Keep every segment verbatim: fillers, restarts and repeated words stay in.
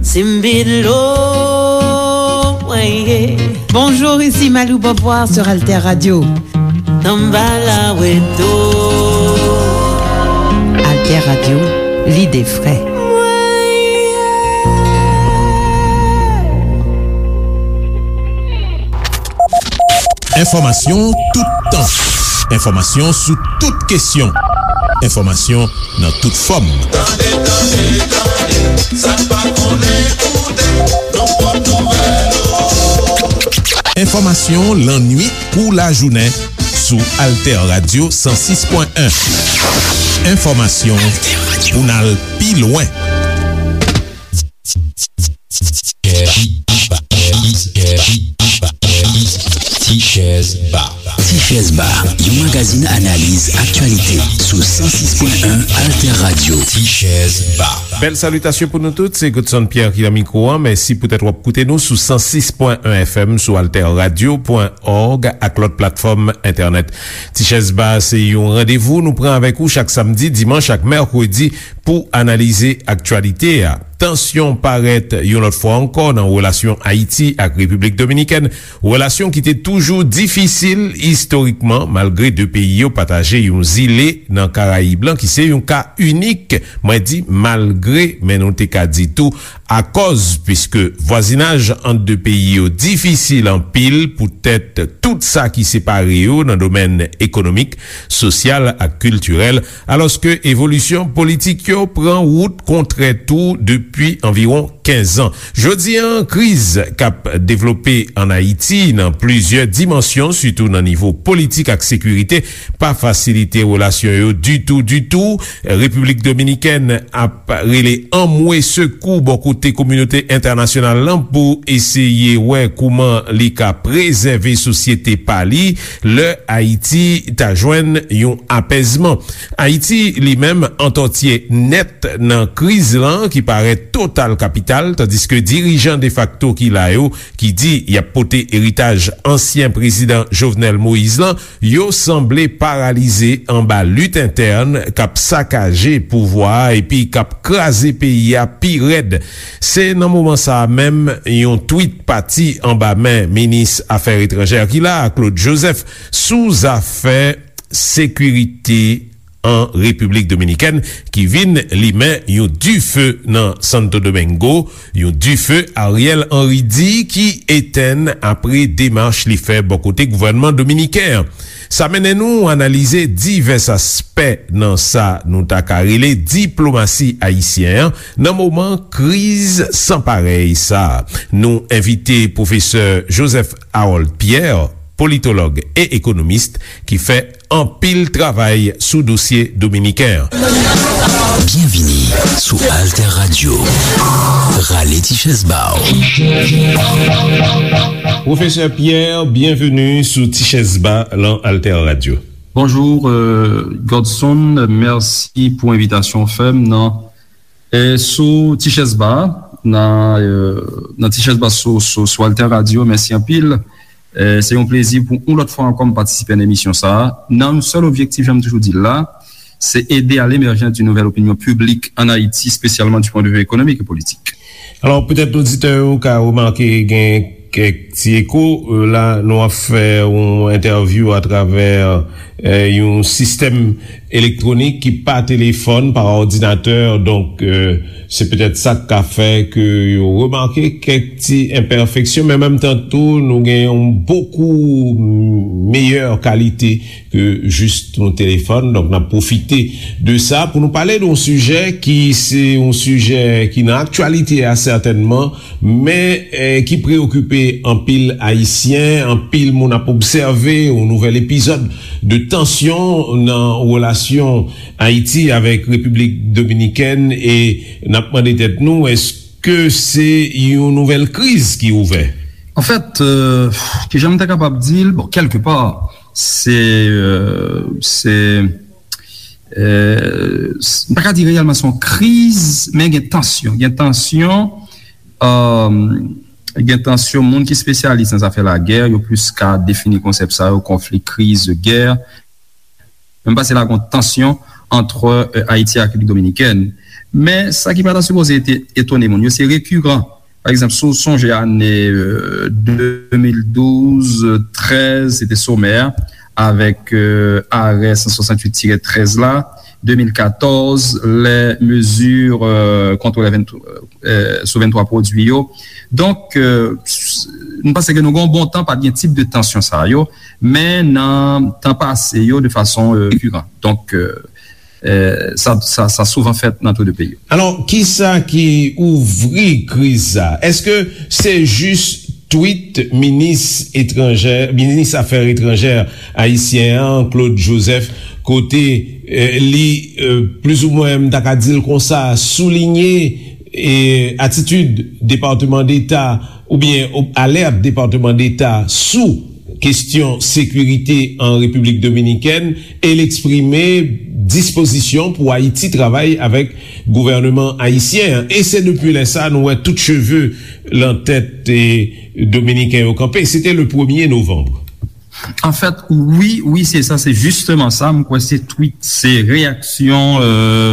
Simbilo, weye. Bonjour, ici Malou Beauvoir sur Alter Radio. Tambala weto. Alter Radio, l'idée vraie. Enfòmasyon toutan. Enfòmasyon sou tout kesyon. Enfòmasyon nan tout fòm. Tande, tande, tande, sa n pa konnen koute, nan pwòp nouvèl yo. Enfòmasyon lannuit kou lajounen sou Alter Radio san sis pwen en. Enfòmasyon pou n al pi lwen. Tichèz Ba. Tichèz Ba, yon magazin analiz aktyalite sou san sis pwen en Alter Radio. Tichèz Ba. Bèl salitasyon pou nou tout, se Godson Pierre ki nan mikwo a. Mèsi poutèt w ap koute nou sou san sis pwen en F M, sou alter radio pwen òg ak lòt platfòm entènèt. Tichèz Ba se yon randevou nou pran avèk ou chak samdi, dimanch ak mèkredi pou analize aktyalite a. Tansyon parèt yon lòt fwa ankò nan relasyon Ayiti ak Repiblik Dominikèn, relasyon ki te toujou difisil istorikman, malgre de peyi yo pataje yon zile nan Karayib lan, ki se yon ka inik. Mwen di malgre, men nou te ka di tou akòz, piske vwazinaj ant de peyi yo difisil anpil poutèt tout sa ki separe yo nan domèn ekonomik, sosyal ak kiltirèl, alòske evolisyon politik yo pran wout kontrè tou depi anviwon kenz an. Jodi a, kriz k ap devlope ann Ayiti nan plizyè dimansyon, sitou nan nivo politik ak sekirite, pa fasilite relasyon yo ditou, ditou. Repiblik Dominikèn ap rele anmwe sekou bò kote kominote entènasyonal lan pou eseye wè kouman li ka prezève sosyete pa li lè Ayiti ta jwenn yon apèzman. Ayiti, li menm, antòtye nèt nan kriz lan ki parèt total kapital, tandiske dirijan defakto ki la yo, ki di y ap pote eritaj ansyen prezidan Jovenel Moïse lan, yo sanble paralize anba lit entèn k ap sakaje pouvwa a epi k ap kraze peyi a pi rèd. Se nan moman sa a menm, yon twit pati anba men minis afè etranjè ki la a, Claude Joseph, sou zafè sekirite an Repiblik Dominikèn, ki vin limen yon dife nan Santo Domingo, yon dife Ariel Henry di ki etenn apre demach li fè bò kote gouvènman dominiken an. Sa mennen nou analize divès aspè nan sa nou ta ka rele diplomasi ayisyen an nan moman kriz san parèy sa a. Nou envite pwofesè Joseph Harold Pierre, politològ e ekonomis, ki fè anpil travay sou dosye dominiken an. Byenvini sou Alter Radio. Rale ti chèz ba w. Pwofesè Pierre, byenveni sou Ti Chèz Ba lan Alter Radio. Bonjou, euh, Godson, mèsi pou envitasyon w fè m nan, euh, sou Ti Chèz Ba, nan, euh, nan Ti Chèz Ba sou, sou, sou Alter Radio. Mèsi anpil. Euh, se yon plezi pou yon lòt fwa ankò m patisipe nan emisyon sa a, nan yon sèl objektif, jan m toujou di l la, se ede à l'émergence d'une nouvelle opinion publique en Haïti, spécialement du point de vue économique et politique. Alò, petèt oditè yo ka remake gen kèk ti eko. Euh, la, nou ap fè yon entèvyou atravè, euh, yon sistèm elektwonik ki pa telefòn, pa òdinatè. Donk, euh, se petèt sa k ka fè ke yo remake kèk ti enpèfeksyon, men menm tan tou, nou gen yon bokou meyè kalite ke jis yon telefòn. Donk, n ap pwofite de sa pou nou pale de yon sijè ki se yon sijè ki nan aktyalite a, sètènman, men, eh, ki preyokipe anpil Ayisyen. Anpil moun ap obsève yon nouvèl epizòd de tansyon nan relasyon Ayiti avèk Repiblik Dominikèn, e n ap mande tèt nou, èske se yon nouvèl kriz ki ouvè? Anfèt, euh, kijan m ta kapab di l? Bon, kèlkepa, se, euh, se, euh, s-, m pa ka di reyèlman se yon kriz, men gen tansyon. Gen tansyon, euh, gen tansyon, moun ki espesyalis nan zafè lagè, yo plis ka defini konsèp sa yo, konfli, kriz, gè. Men m panse la gen tansyon ant, e, Ayiti ak Repiblik Dominikèn. Men, sa ki pa ta sipoze ete-, etone moun yo, se rekiran. Pa egzanp, si w sonje ane, e, de mil douz, trèz, se te somè a, avèk, e, arè san swasanntuit tirè trèz la, de mil katòz, lè mezi, e, kont lè venntwa, e, sou venntwa pwodui yo. Donk, e, s-, nou panse ke nou gen yon bon tan, pa t gen tip de tansyon sa yo, men nan tan pase yo, de fason, e, rekiran. Donk, e, e, sa, sa, sa souvan fèt nan tou de peyi yo. Alò, kisa ki ouvri kriz sa? Èske se jis tweet minis etranjè, minis afè etranjè ayisyen an, Claude Joseph, kote, e, li, e, plizoumwen, m ta ka di l konsa, soulinye, e, atitid Depatman Deta oubyen o-, alèt Depatman Deta sou kestyon sekirite an Repiblik Dominikèn, e l eksprime dispozisyon pou Ayiti travay avèk gouvènman ayisyen an. E se depi lè sa nou wè tout cheve lan tèt, e, dominiken yo kanpe. Se te le premye novanm. Anfèt, wi, wi, se sa, se jisteman sa. M kwè se tweet, se reyaksyon, e,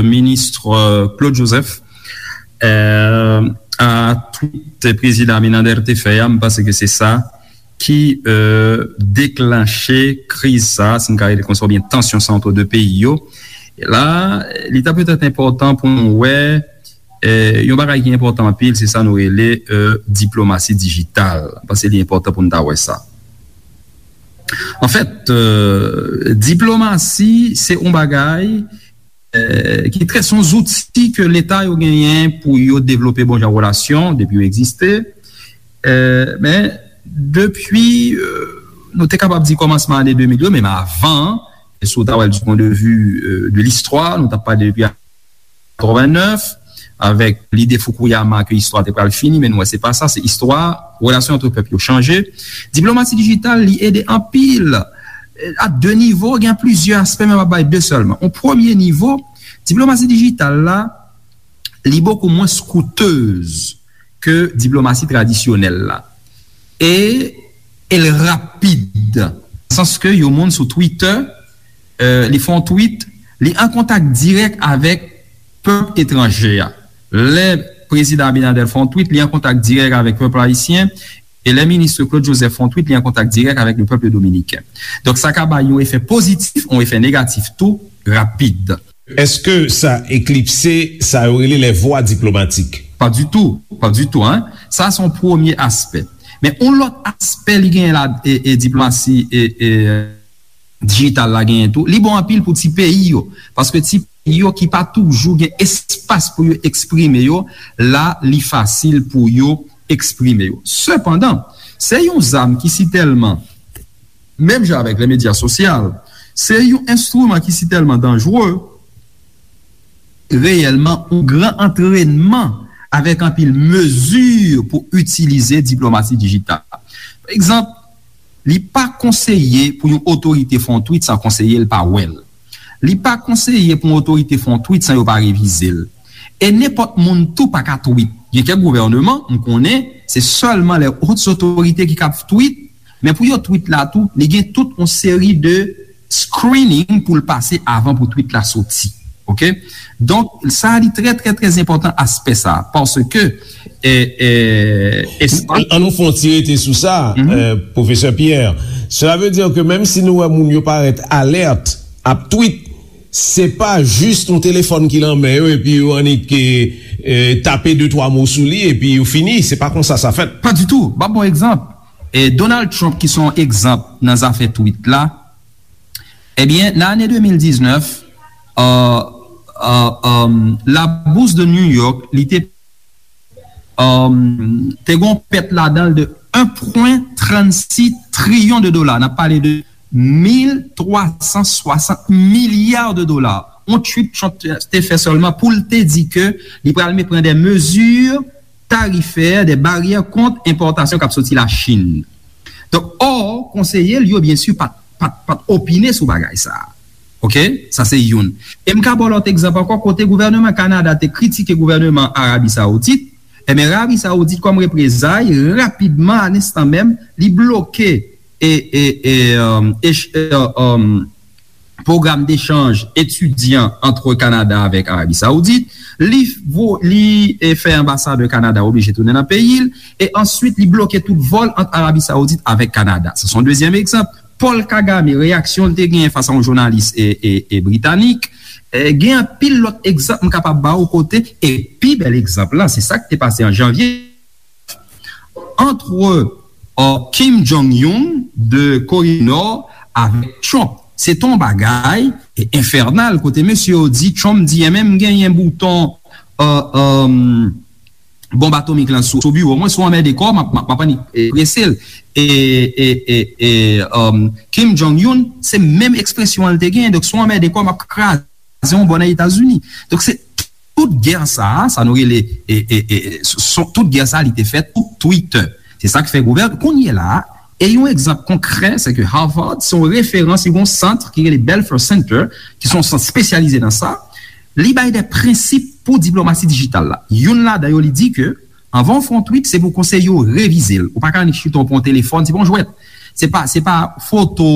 minis, e, Claude Joseph, e, a tweet prezidan Abinader te fè a. M panse ke se sa ki, e, deklanche kriz sa, si n ka rele konsa, oubyen tansyon sa ant de peyi yo. E la, li ta petèt enpòtan pou nou wè, e, yon bagay ki enpòtan anpil, se sa nou rele, e, diplomasi dijital. M panse li enpòtan pou n ta wè sa. Anfèt, e, diplomasi, se yon bagay, e, ki trè, se yon zouti ke Leta yo genyen pou yo devlope bon jan relasyon, depi yo egziste. E, men, depi, e, nou te kapab di kòmansman ane de mil yo, menm avan, e si w ta wè l du point de vue, e, de listwa, nou t ap pale depi katrevennnèf, avèk lide Fukuyama ke istwa te pral fini, men nou wè se pa sa, se istwa, relasyon ant pèp yo chanje. Diplomasi dijital, li ede anpil, e, a de nivo, gen plizyè aspè, men m ap bay de sèlman. On premye nivo, diplomasi dijital la, li bokou mwens koutez ke diplomasi tradisyonèl la. E, e l rapid. Sans ke yon moun sou Twitter, e, li fè yon tweet, li an kontak dirèk avèk pèp etranje a. Lè prezidan Abinader fè yon tweet, li an kontak dirèk avèk pèp ayisyen, e lè minis Claude Joseph fè yon tweet, li an kontak dirèk avèk le pèp dominiken. Donk, sa ka bay yon efè pozitif, yon efè negatif tou, rapid. Èske sa eklipse sa yo rele les voies diplomatiques? Pa ditou, pa ditou, en. Sa, se yon premye aspè. Men yon lòt aspè li genyen la, e, e diplomasi, e, e, dijital la genyen tou, li bon anpil pou ti peyi yo. Paske ti peyi yo ki pa toujou gen espas pou yo eksprime yo, la, li fasil pou yo eksprime yo. Sepandan, se yon zam ki sitèlman, menm jan avèk le medya sosyal, se yon enstriman ki sitèlman danjere, reyèlman, yon gran antrènman avèk anpil mezi pou itilize diplomasi dijital. Pa egzanp, li pa konseye pou yon otorite fè yon tweet san konseye l pa wè l. Li pa konseye pou yon otorite fè yon tweet san yo pa revize l. E nenpòt moun tou pa ka tweet. Gen kèk gouvènman, m konnen, se sèlman lè hautes autorités ki kab tweet, men pou yo tweet la tou, li gen tout yon seri de screening pou l pase avan pou tweet la soti. Oke? Donk, sa li trè, trè, trè enpòtan aspè sa, paske, e, e, espas An nou fè yon ti rete sou sa, e, pwofesè Pierre. Cela veut dire que menm si nou wè moun yo parèt alèt ap tweet, se pa jis yon telefòn ki lan men yo epi yo annik, e, e, tape de twa mo sou li epi yo fini. Se pa konsa sa fèt. Pa ditou. M ap ba w egzanp. E Donald Trump, ki se yon egzanp nan zafè tweet la, ebyen, nan ane de mil diznèf, e, e, e, la bourse de New York, li te, e, te gen yon pèt ladan l de en pwen trannsis triyon de dola. N ap pale de mil twa san swasant milya de dola. Yon tweet Trump te fè sèlman pou l te di ke li pral me-, pran de mezi tarifè, de baryè kont enpòtasyon k ap soti Lachin. Donk, ò, konseye l yo, byen si, pa t, pa t, pa t opine sou bagay sa a. Oke? Sa se youn. E m ka ba w lòt egzanp ankò, kote gouvènman Kanada te kritike gouvènman Arabi Saoudit, ebyen, Arabi Saoudit, kòm reprezay, rapidman, a lenstan menm, li bloke e, e, e, um, e, e, um, pwogram dechanj etidyan ant Kanada avèk Arabi Saoudit. Li, vo, li e, fè anbasadè Kanada oblije tounen nan peyi l. E answit, li bloke tout vòl ant Arabi Saoudit avèk Kanada. Sa se yon dezyèm egzanp. Paul Kagame, reyaksyon l te genyen fas a yon jounalis e, e, e britanik. E, gen anpil lòt egzanp m kapab ba w kote, e pi bèl egzanp lan, se sa k te pase an janvye, antre, euh, Kim Jong-un de Kore di Nò avèk Trump. Se te yon bagay, e, enfènal, kote mesye yo di, Trump di, enben m genyen bouton, euh, euh, bonb atomik lan sou, sou biwo mwen, si w anmède kò w, m ap, m ap, m ap annik, e, prese l. E, e, e, e, euh, Kim Jong-un, se menm ekspresyon an l te genyen. Donk, si w anmède kò w, m ap kraze yon bò nan Etazini. Donk, se tout gè sa a, sa nou rele, e, e, e, son, tout gè sa a, li te fèt sou Twitter. Se sa k fè gouvèn, kounye la a, e yon egzanp konkrè, se ke Harvard, se yon referans, li gen yon sant ki rele Belfer Center, ki se yon sant espesyalize nan sa. Li bay de prensip pou diplomasi dijital la. Youn ladan yo, li di ke, anvan w fè yon tweet, se pou konseye w revize l. Ou pa ka annik chita w pran yon telefòn, se pa yon jwèt. Se pa, se pa foto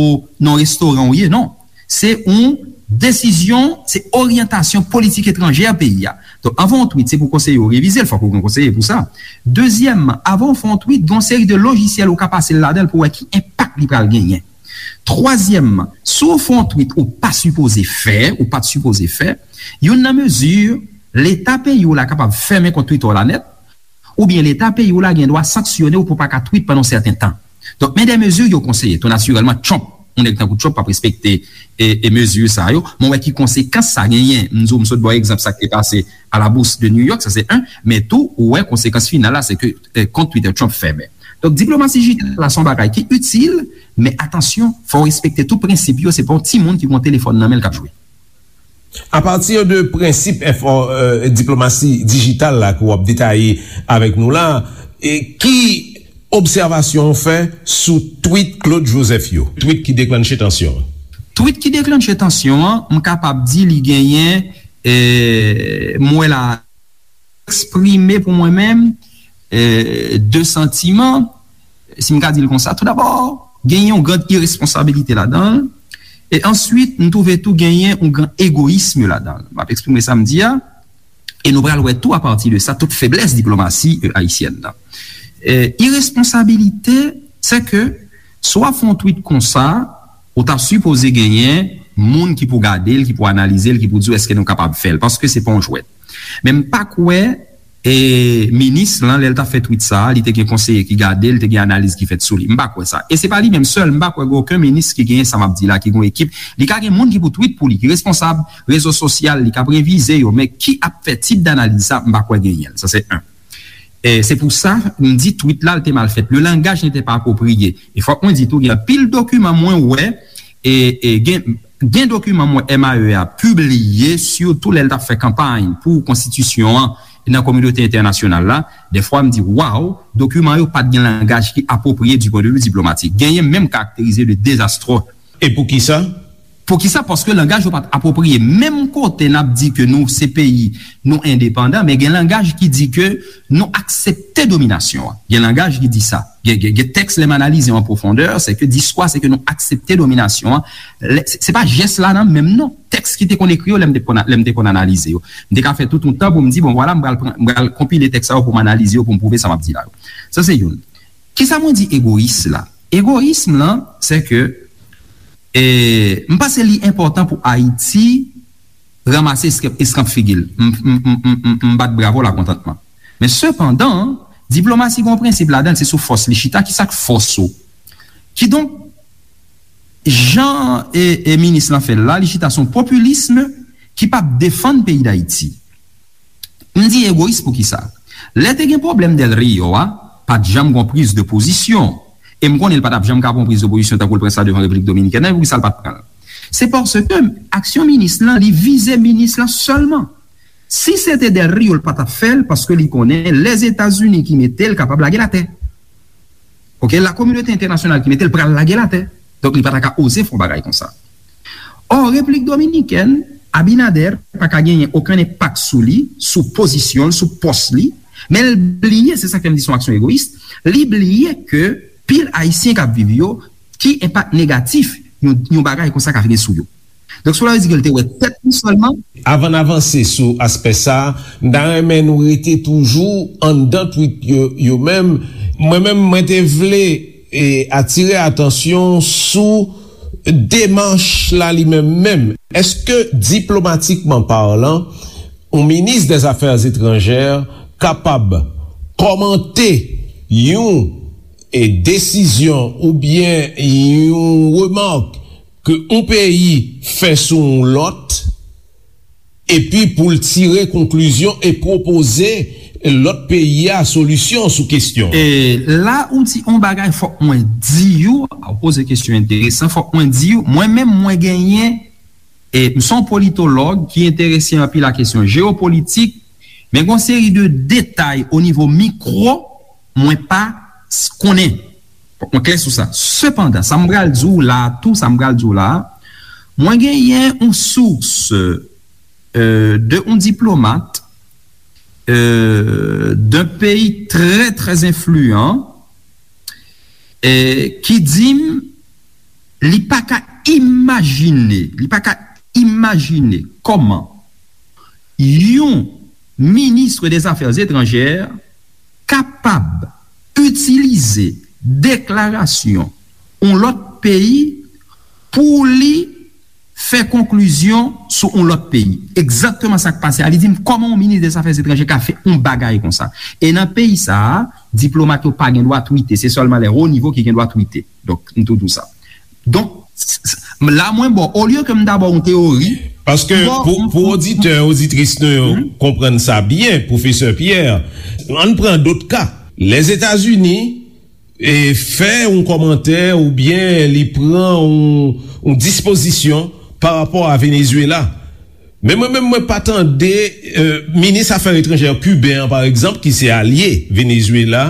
nan restoran w ye, non. Se yon desizyon, se oryantasyon politik etranjè peyi a. Donk, anvan w tweet, se pou konseye w revize l, fòk ou gen konseye pou sa. Dezyèmman, anvan w fè yon tweet, gen yon seri de lojisyèl ou ka pase l ladan l pou wè ki enpak li pral genyen. Twazyèmman, si w fè yon tweet ou pa sipoze fè, ou pa t sipoze fè, youn nan mezi, Leta peyi w la kapab fèmen kont Twitter w la nèt, oubyen Leta peyi w la gen dwa sanksyone w pou w pa ka tweet pandan yon sèten tan. Donk, men de mezi yo konseye. Tou natirèlman, Trump, yon nèg tankou Trump p ap respekte e, e mezi sa yo. Men w wè ki konsekans sa genyen. M di w, m sot ba w egzanp sa k te pase a la Bourse de New York, sa se en. Men tou, ou wè konsekans final la, se ke, e, kont Twitter Trump fèmen. Donk, diplomasi dijital la se yon bagay ki itil, men atansyon, fò w respekte tout prensip yo. Se pa yon timoun ki gen yon telefòn nan men l k ap jwe. Apati de prensip enfò, e, diplomasi dijital la ke w ap detaye avèk nou la, e ki obsèvasyon w fè sou tweet Claude Joseph yo? Tweet ki deklanche tansyon an. Tweet ki deklanche tansyon an, m kapab di li genyen, e, m wè la, eksprime pou mwen menm, e, de santiman, si m ka di l konsa. Tou dabò, genyen yon gran iresponsabilite ladan l. E answit, m twouve tou genyen yon gran egoyism ladan l. M ap eksprime sa m di a. E nou pral wè tou apati de sa, tout feblès diplomasi, e, ayisyèn nan. E, iresponsabilite, se ke si w ap fè yon tweet konsa, ou ta sipoze genyen moun ki pou gade l, ki pou analize l, ki pou di w èske nou kapab fè l, paske se pa yon jwèt. Men m pa kwè, e, minis lan, lè l t ap fè tweet sa a, li te gen konseye ki gade l, te gen analiz ki fèt sou li. M pa kwè sa. E se pa li menm sèl, m pa kwè gen okenn minis ki genyen sa m ap di la, ki gen yon ekip. Li ka gen moun ki pou tweet pou li, ki responsab rezo sosyal, li k ap revize yo, men ki ap fè tip danaliz sa, m pa kwè genyen l. Sa se en. E se pou sa, m di tweet la, l te mal fèt. Le langage n'était pas approprié. E fòk mwen di tou, gen anpil dokiman mwen wè, e, e gen, gen dokiman mwen M A E a pibliye, sitou lè l t ap fè kanpay pou konstitisyon an nan kominote entènasyonal la. Dèfwa, m di, waw, dokiman yo pa t gen langaj ki apwopriye du point de vue diplomatique. Genyen menm karakterize de dezastre. E poukisa? Poukisa? Paske langaj yo pa t apwopriye. Menm kote n ap di ke nou se peyi, nou endepandan, men gen langaj ki di ke nou aksepte dominasyon an. Gen langaj ki di sa. Gen, gen, gen tèks, lè m analize yo an pwofondè, se ke diskou a, se ke nou aksepte dominasyon an. Lè, se, se pa jès la nan menm non. Tèks ki te konn ekri yo, lè m te konn, lè m te konn analize yo. M te ka fè tout yon tan pou m di, bon, vwala, m pral pran, m pral konpile tèks sa yo pou m analize yo, pou m pwouve sa m ap di la yo. Sa se youn. Kisa mwen di egoyis la? Egoyism lan, se ke, e, m panse li enpòtan pou Ayiti ranmase eskanp, eskanp figi l. M, m, m, m, m, m bat bravo lakontantman. Men sepandan, diplomasi gen yon prensip ladan l, se sou fòs li chita. Kisa k fòs ou? Kidonk, jan e, e minis lan fè l la, li chita sou yon popilism ki p ap defann peyi Dayiti. M di egoyis poukisa? Lè te gen pwoblèm Del Rio a, pa t janm gon priz de pozisyon. E m konnen l pa t ap janm ka pran yon priz de pozisyon tankou l pran sa devan Repiblik Dominikèn nan, e poukisa l pa t pran l? Se paske aksyon minis lan, li vize minis lan sèlman. Si se te Del Rio, l pa t ap fè l, paske li konnen Lèzetazini ki mete l kapab lage l atè. Oke, lakominote entènasyonal ki mete l pral lage l atè. Donk, li pa ta ka oze fè yon bagay konsa. Ò, Repiblik Dominikèn, Abinader pa ka genyen okenn enpak sou li, sou pozisyon l, sou pòs li, men l bliye, se sa k fè m di se yon aksyon egoyis, li bliye ke pil Ayisyen k ap viv yo, ki enpak negatif yon, yon bagay konsa ka gen sou yo. Donk, cela veut dire ke l te wè tèt li sèlman. Avan n avanse sou aspè sa a, m ta renmen nou rete toujou anndan tweet yo, yo menm. Mwen menm, mwen te vle, e, atire atansyon sou demach la li menm menm. Èske, diplomatikman palan, yon minis dè zafè etranjè kapab kòmante yon, e, desizyon oubyen yon remak ke yon peyi fè sou yon lòt, epi pou l tire konklizyon e pwopoze lòt peyi a solisyon sou kesyon an? E la ou di yon bagay, fòk mwen di w, ou poze kesyon enteresan, fòk mwen di w, mwen menm mwen genyen, e m se yon politològ ki enterese anpil a kesyon jewopolitik, men gen yon seri de detay o nivo mikwo mwen pa s- konnen. Fòk mwen klè sou sa. Sepandan, sa m pral di w la a tou, sa m pral di w la a, mwen genyen yon sous, euh, de yon diplomat, euh, d'un pays très, très influent, eh, ki di m li pa ka imajine, li pa ka imajine kòman yon minis dè zafè etranjè kapab itilize deklarasyon yon lòt peyi pou li fè konklizyon sou yon lòt peyi. Egzakteman sa k pase a. Li di m, kòman yon minis dè zafè etranjè ka fè yon bagay konsa? E nan peyi sa a, diplomat yo pa gen dwa twite. Se sèlman lè wo nivo ki gen dwa twite. Donk, m tou di w sa. Donk, s- s- la mwen ba w, olye ke m ta ba w yon teyori, Paske m ba w pou, m- pou m- oditè, oditris nou yo Mhm. konprann sa byen, Pwofesè Pierre, ann pran dòt ka. Lèzetazini e fè yon kòmantè oubyen li pran yon, yon dispozisyon pa rapò a Venezuela. Men mwen menm, mwen pa tande, euh, minis afè etranjè kiben an, pa egzanp, ki se alye Venezuela,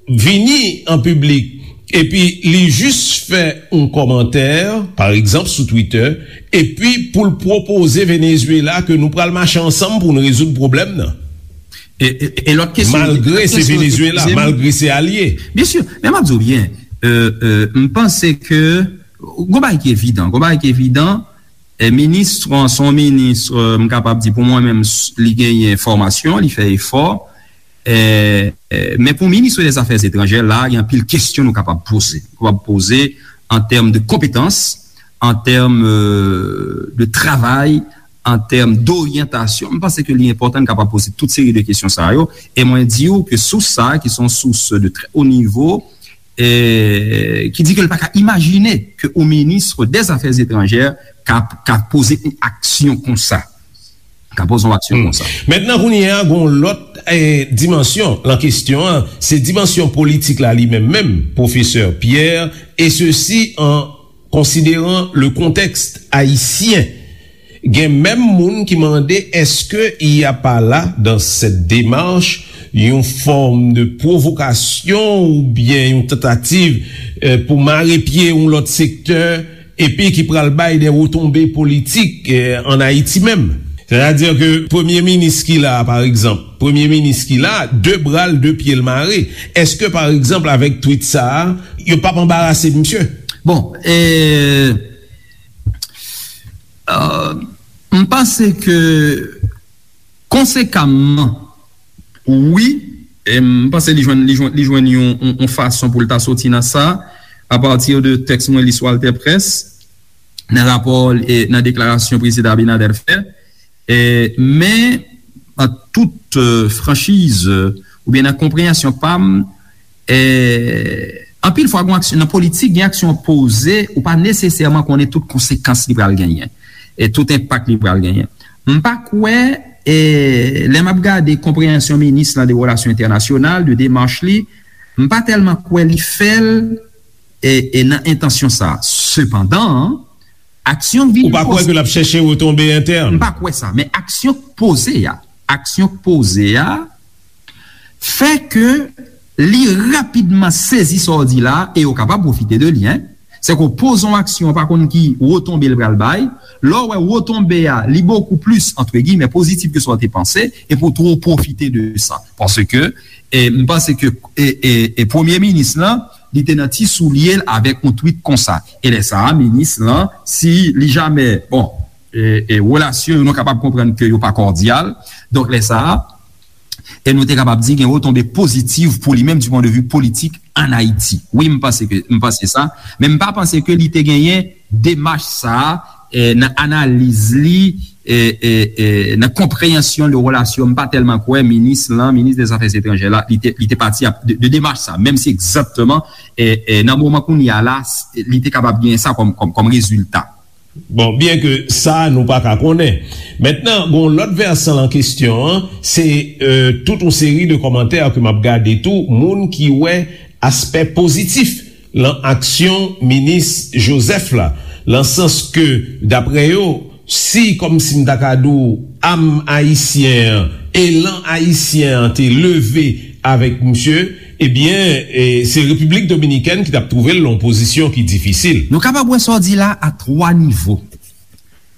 vini an piblik, epi li jis fè yon kòmantè, pa egzanp, sou Twitter, epi pou l pwopoze Venezuela ke nou pral mache ansanm pou n rezoud pwoblèm nan. E, e, e lòt kesyon, Malgre lòt se kesyon, Venezuela, eskize m. Malgre se alye. Byen si, men m ap di w byen, euh, euh, m panse ke gon bagay ki evidan, gon bagay ki evidan, e minis, se yon minis, euh, m kapab di pou mwen menm, s- li genyen fòmasyon, li fè efò, e, e, men pou minis dè zafè etranjè, la, gen anpil kesyon nou kapab poze. Nou kapab poze an tèm de konpetans, an tèm, euh, de travay, an tèm doryantasyon. M panse ke li enpòtan n kapab poze tout seri de kesyon sa yo. E mwen di w ke sous sa, ki se yon sous de trè wo nivo, e, ki di ke l pa ka imajine ke yon minis dè zafè etranjè ka, ka poze yon aksyon konsa. Ka poze yon aksyon Hmm. konsa. Mentnan, kounye a, gon lòt, eh, dimansyon lan kesyon an, se dimansyon politik la li menm menm, Pwofesè Pierre, et ceci en considérant le contexte haïtien. Gen menm moun ki mande, est-ce qu'il n'y a pas là, dans cette démarche, yon fòm de pwovokasyon oubyen yon tantativ, eh, pou mare pye yon lòt sektè, epi ki pral bay de retonbe politik, eh, ann Ayiti menm? Sètadi ke premye minis ki la a, pa egzanp, premye minis ki la a, de bra l, de pye l mare. Èske, pa egzanp, avèk twit sa a, yo p ap anbarase misye? Bon, e, euh, m panse ke konsekamman, wi, e m panse li jwenn, li jwenn, li jwenn yon, yon, yon fason pou l ta soti nan sa, apati de tèks mwen li sou AlterPresse, nan rapò, e, nan deklarasyon Prezidan Abinader fè. E, men, an tout, e, franchiz, e, oubyen nan konpreyansyon pa m, e, anpil fwa, gen aksyon, nan politik, gen aksyon poze, ou pa nesesèman konnen tout konsekans li pral genyen, e tout enpak li pral genyen. M pa kwè, e, lè m ap gade konpreyansyon minis lan de relasyon entènasyonal, de demach li, m pa tèlman kwè li fè l, e, e nan entansyon sa. Sepandan, aksyon k vin Ou pa kwè poze ke l ap chèche retonbe entèn? M pa kwè sa, men aksyon k poze a, aksyon k poze a, fè ke li rapidman sezi sa w di la, e yo kapab pwofite de li, en. Se ke w poze yon aksyon, w pa konn ki retonbe l pral bay. Lè w wè retonbe a, li bokou plis, antre giymen, pozitif ke sa w te panse, epi w twò pwofite de sa. Paske, e, m panse ke, e, e, e premye minis lan, li te nan ti soulye l avèk yon tweet konsa. E lè sa a, minis lan, si li jamè, bon, e, e, relasyon yo, nou kapab konprann ke yo pa kòdyal. Donk, lè sa a, e nou te kapab di gen retonbe pozitiv pou li menm du point de vue politik ann Ayiti. Wi, m panse ke, m panse sa, men m pa panse ke li te genyen demach sa a, e, nan analiz li, e, e, e, nan konpreyansyon de relasyon, m pa tèlman kwè minis lan, minis dè zafè etranjè la, li te, li te pati ap, de, de demach sa, menm si egzakteman, e, e, nan moman kounye a la, s-, li te kapab genyen sa kòm, kòm, kòm rezilta. Bon, byen ke sa, nou pa ka konnen. Mentnan, gon lòt vèsan lan kesyon an, se, e, tout yon seri de kòmantè ke m ap gade tou, moun ki wè aspè pozitif lan aksyon minis Joseph la, lan sans ke, daprè yo, si, kòmsi m ta ka di w, am ayisyen an, elan ayisyen an te leve avèk misye, ebyen, e, se Repiblik Dominikèn ki t ap twouve l lan yon pozisyon ki difisil. Nou kapab wè sa w di la a twa nivo.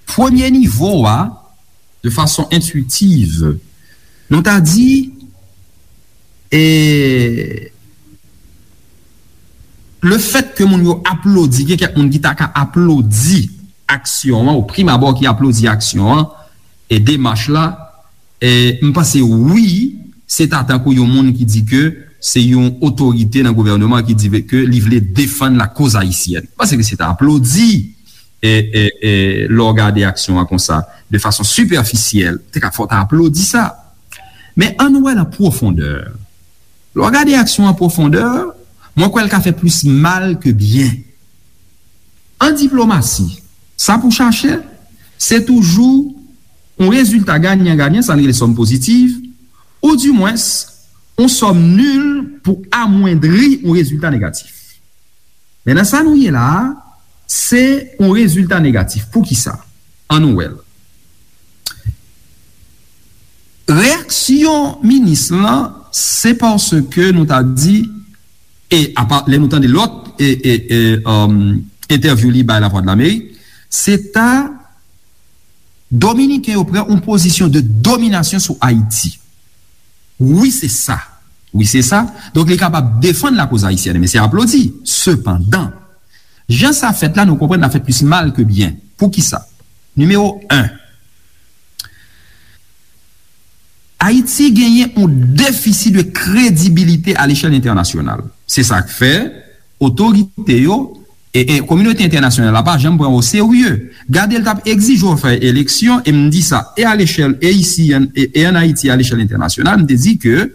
Premye nivo a, de fason entwitiv, nou ta di, e, le fèt ke moun yo aplodi, gen kèk moun ki ta ka aplodi aksyon an, o prim abò ki aplodi aksyon an, e demach la, e, m panse wi, se ta tankou yon moun ki di ke se yon otorite nan gouvènman ki di ke li vle defann lakoz ayisyèn. M panse ke se ta aplodi, e, e, e, lè w gade aksyon an konsa, de fason sipèfisyèl, te ka fò ta aplodi sa. Men ann wè l an pwofondè. Lè w gade aksyon an pwofondè, mwen kwè l ka fè plis mal ke byen. An diplomasi, sa pou chache, se toujou yon rezilta ganyan ganyan, sa n rele sòm pozitiv, oudimwens, yon sòm nil pou amwendri yon rezilta negatif. Men nan sa nou ye la a, se yon rezilta negatif. Poukisa? Ann nou wè l. Reyaksyon minis lan, se paske nou ta di, e apa, lè nou tande lòt, e, e, e, um, entèvyou li bay Lavwadlamerik, se ta Dominiken yo pran yon pozisyon de dominasyon sou Ayiti. Wi, se sa. Wi, se sa. Donk, li kapab defann lakoz ayisyèn, men se aplodi. Sepandan, jan sa fèt la, nou konprann l ap fè plis mal ke byen. Poukisa? Nimewo en, Ayiti genyen yon defisi de kredibilite a lechèl entènasyonal. Se sa k fè otorite yo e, e kominote entènasyonal la pa janm pran o serye. Gade, l t ap egzije w fè eleksyon, e m di sa, e a lechèl, e isi, e, e ann Ayiti, a lechèl entènasyonal, m te di ke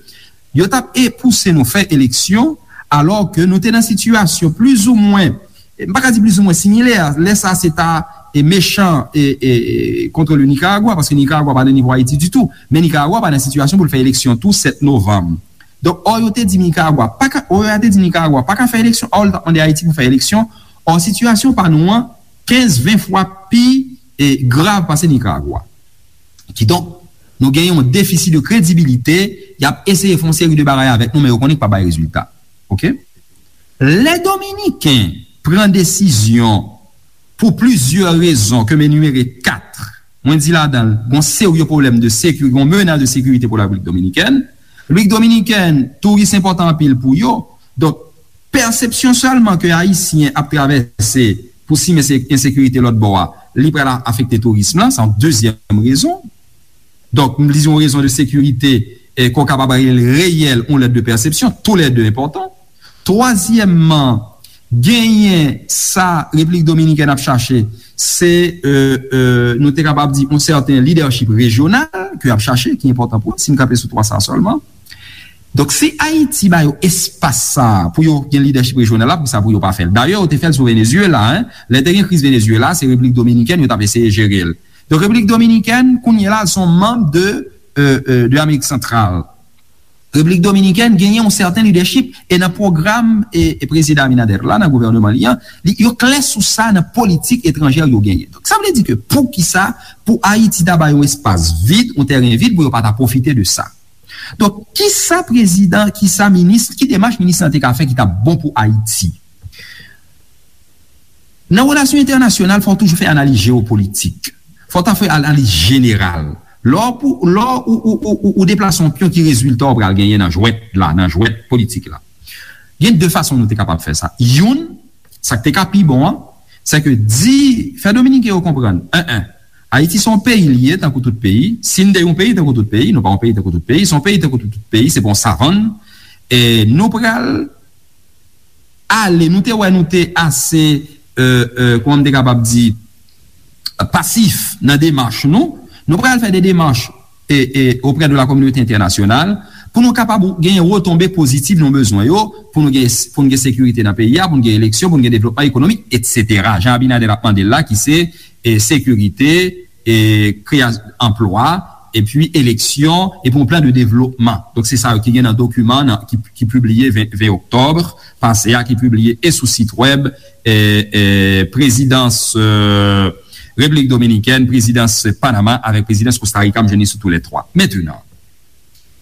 yo t ap e pouse nou fè eleksyon, alò ke nou te nan sitiyasyon plizoumwen, e, m pa ka di plizoumwen similè, lè sa se ta, e, mechan, e, e, e, contre le Nicaragua, paske Nicaragua pa nan nivo Ayiti ditou, men Nicaragua pa nan sitiyasyon pou l fè eleksyon tou sèt novanm. Donk, ò, yo te di Nicaragua pa ka, ò, yo te di Nicaragua pa ka fè eleksyon, ò, l t ap mande Ayiti pou fè eleksyon, ò, sitiyasyon pa nou an kenz, ven fwa pi, e, grav pase Nicaragua. Kidonk, nou gen yon defisi de kredibilite, y ap eseye fè yon seri de bagay avèk nou, men yo konnen k pa bay rezilta. Oke? Lè Dominiken pran desizyon pou plizyè rezon ke m enimere kat, mwen di ladan l, gon serye pwoblèm de sekirite, gon menas de sekirite pou Repiblik Dominikèn. Repiblik Dominikèn, touris enpòtan anpil pou yo. Donk, pèsepsyon sèlman ke Ayisyen ap travèse pou simen se ensekirite lòt bò a, li pral afekte touris lan, se yon dezyèm rezon. Donk, m di yon rezon de sekirite, e, ke w kapab rele reyèl, yon lèt de pèsepsyon, toulède enpòtan. Twazyèmman, genyen sa Repiblik Dominikèn ap chache, se, e, e, nou te kapab di, yon sèten lidèchip rejyonal ke y ap chache, ki enpòtan pou yo, si m kanpe sou twa sa sèlman. Donk, si Ayiti ba yo espas sa a pou yo gen lidèchip rejyonal la, poukisa pou yo pa fè l? Dayè, yo te fè l sou Venezuela, en. Lè te gen kriz Venezuela, se Repiblik Dominikèn yo t ap eseye jere l. Donk, Repiblik Dominikèn, kounye a la, se yon manm de, e, e, de Amerik Santral. Repiblik Dominikèn genyen yon sèten lidèchip, e nan pwogram, e, e prezidan Abinader la, nan gouvènman li an, li, yo klè sou sa nan politik etranjè yo genyen. Donk, sa vle di ke poukisa pou Ayiti ta ba yo espas vid, yon tèren vid, pou yo pa ta pwofite de sa? Donk, kisa prezidan, kisa minis, ki demach minis lan te ka fè ki t ap bon pou Ayiti? Nan relasyon entènasyonal, fò w toujou fè analiz jewopolitik. Fò w ta fè analiz jeneral. Lè w pou, lè w ou, ou, ou, ou, ou deplase yon pyon, ki rezilta w pral genyen nan jwèt la, nan jwèt politik la? Gen de fason nou te kapab fè sa. Youn, sa k te ka pi bon an, se ke di, fè Dominiken yo konprann, en, en, Ayiti se yon peyi li ye, tankou tout peyi. Si n te yon peyi, tankou tout peyi, nou pa yon peyi, tankou tout peyi, se yon peyi, tankou tout, tout peyi, se pa yon savann. E nou pral ale, nou te wè, nou te ase, euh, euh, kòman m te kapab di, pasif nan demach nou, nou pral fè de demach e, e, auprès de la communauté internationale, pou nou kapab genyen retonbe pozitif nou bezwen yo, pou nou gen, pou nou gen sekirite nan peyi a, pou nou gen eleksyon, pou nou gen devlopman ekonomik, etsetera. Jan Abinader ap mande l la, ki se, e, sekirite, e, kreyasyon anplwa, epi eleksyon, epi yon plan de devlopman. Donk, se sa yo ki gen nan dokiman nan, ki, ki pibliye ven, ven oktòb pase a, ki pibliye e sou sit wèb, e, e, prezidans, e, Repiblik Dominikèn, prezidans Panama avèk prezidans Kosta Rika, m jwenn li sou tou lè twa. Mentenan,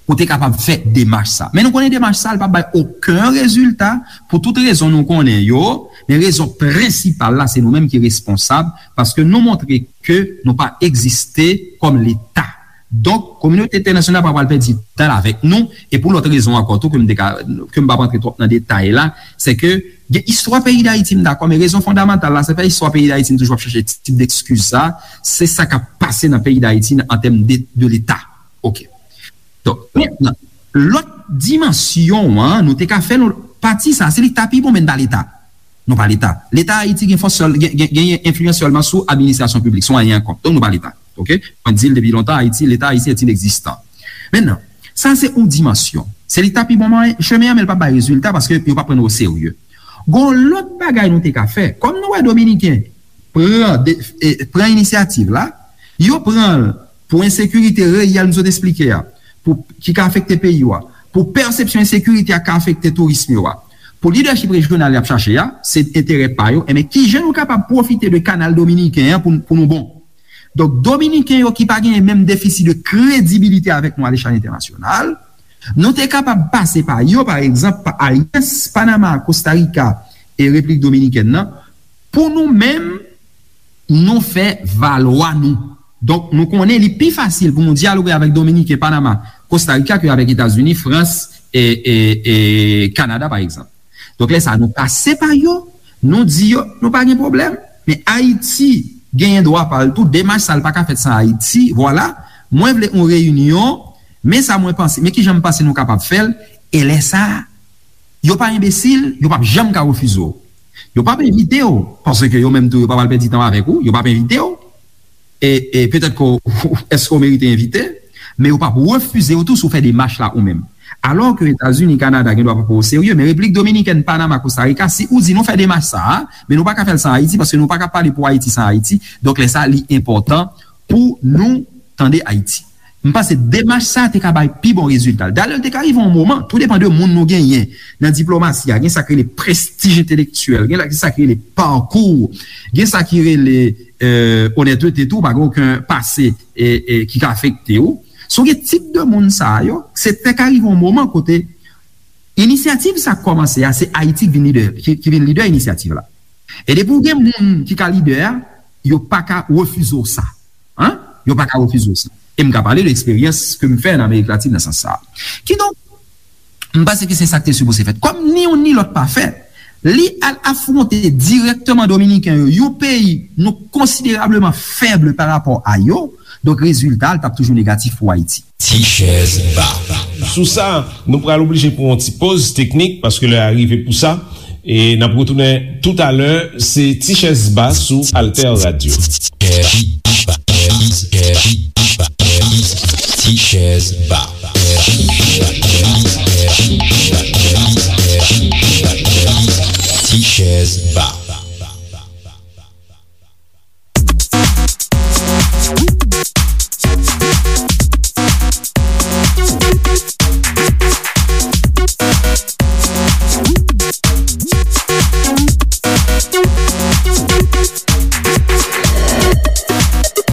pou te kapab fè demach sa. Men nou konnen demach sa, li p ap bay okenn rezilta pou tout rezon nou konnen yo, men rezon prensipal la, se nou menm ki responsab, paske nou montre ke nou pa egziste kòm Leta. Donk, kominote entènasyonal pa pral pèdi tan l avèk nou, e pou lòt rezon ankò tou, ke m te ka, ke m p ap antre twòp nan detay la, se ke gen istwa peyi Dayiti, m dakò, men rezon fondamantal la, se pa istwa peyi Dayiti, m toujou ap chache tip dekskiz sa, se sa k ap pase nan peyi Dayiti an tèm de, de Leta. Oke. Donk, mentnan, lòt dimansyon an, nou te ka fè l, pati sa, se li k ta pi bon, men n pa Leta. Nou pa Leta. Leta Ayiti gen fòs sèl, gen, gen, genyen enfliyans sèlman sou administrasyon piblik, sou anyen ankò. Donk, nou pa Leta. Oke? Mwen di l depi lontan, Ayiti, Leta ayisyen est inexistant. Mentnan, sa se yon dimansyon. Se li k ta pi bon mwayen, chemen an, men l p ap bay rezilta paske yo p ap pran nou oserye. Gon lòt bagay nou te ka fè. Kòm nou wè Dominiken pran, de, e, pran inisyativ la, yo pran l pou ensekirite reyèl m sot esplike a, pou, ki ka afekte peyi yo a, pou pèsepsyon ensekirite a ka afekte tourism yo a, pou lidèchip rejyonal y ap chache a, se enterè pa yo, enben kijan nou kapab pwofite de kanal dominiken an pou, pou nou bon? Donk, Dominiken yo ki pa genyen menm defisi de kredibilite avèk nou alechal entènasyonal, nou te kapab pase pa yo, pa egzanp, pa alyans Panama, Kosta Rika e Repiblik Dominikèn nan, pou nou menm, nou fè valwa nou. Donk, nou konnen li pi fasil pou nou dyaloge avèk Dominiken, Panama, Kosta Rika ke avèk Etazini, Frans e, e, e Kanada, pa egzanp. Donk, lè sa a, nou pase pa yo, nou di yo, nou pa gen pwoblèm, men Ayiti genyen dwa pa l tou, demach sa a pa ka fèt san Ayiti, vwala, mwen vle yon reyinyon, men sa mwen panse, men kijan m panse nou kapab fè l, e lè sa a, yo pa enbesil, yo p ap janm ka refize w. Yo p ap envite w, paske yo menm tou, yo pa pral pèdi tan avèk ou, yo p ap envite w. E, e petèt ke w, èske w merite envite, men yo p ap refize w tou si w fè demach la ou menm. Alò ke Etazini, Kanada gen dwa pa pran w oserye, men Repiblik Dominikèn, Panama, Kosta Rika, si ou di nou fè demach sa a, men nou pa ka fè l san Ayiti, paske nou pa ka pale pou Ayiti san Ayiti. Donk, lè sa a, li enpòtan pou nou tande Ayiti. M panse demach sa a te ka bay pi bon rezilta. Dayè, li te ka rive yon moman, tou depann de moun nou genyen nan diplomasi a, gen sa k rele prestij entelektyèl, gen la, gen sa k rele pakou, gen sa ki rele, e, onètete tou, pa gen okenn pase, e, e, ki ka afekte w. Si w gen tip de moun sa a yo, se te ka rive yon moman kote inisyativ sa k kòmanse a, se Ayiti k vin lidè, ki, ki vin lidè inisyativ la. E depi w gen moun ki ka lidè a, yo pa ka refize w sa. Hein? Yo pa ka refize w sa. E m ka pale de eksperyans ke m fè nan Amerik Latin nan sans sa a. Kidonk, m panse ke se sa k te sipoze fèt. Kòm ni youn ni lòt pa fèt, li al afwonte dirèkteman Dominiken yo, yon peyi nou konsiderableman fèb pa rapò a yo, donk rezilta a, l t ap toujou negatif pou Ayiti. Ti chèz ba. Sou sa, nou pral oblije pran yon ti poz teknik paske lè a rive pou sa. E n ap retounen toutalè, se Ti chèz ba sou Alter Radio. Ti chèz ba. Ti chèz ba.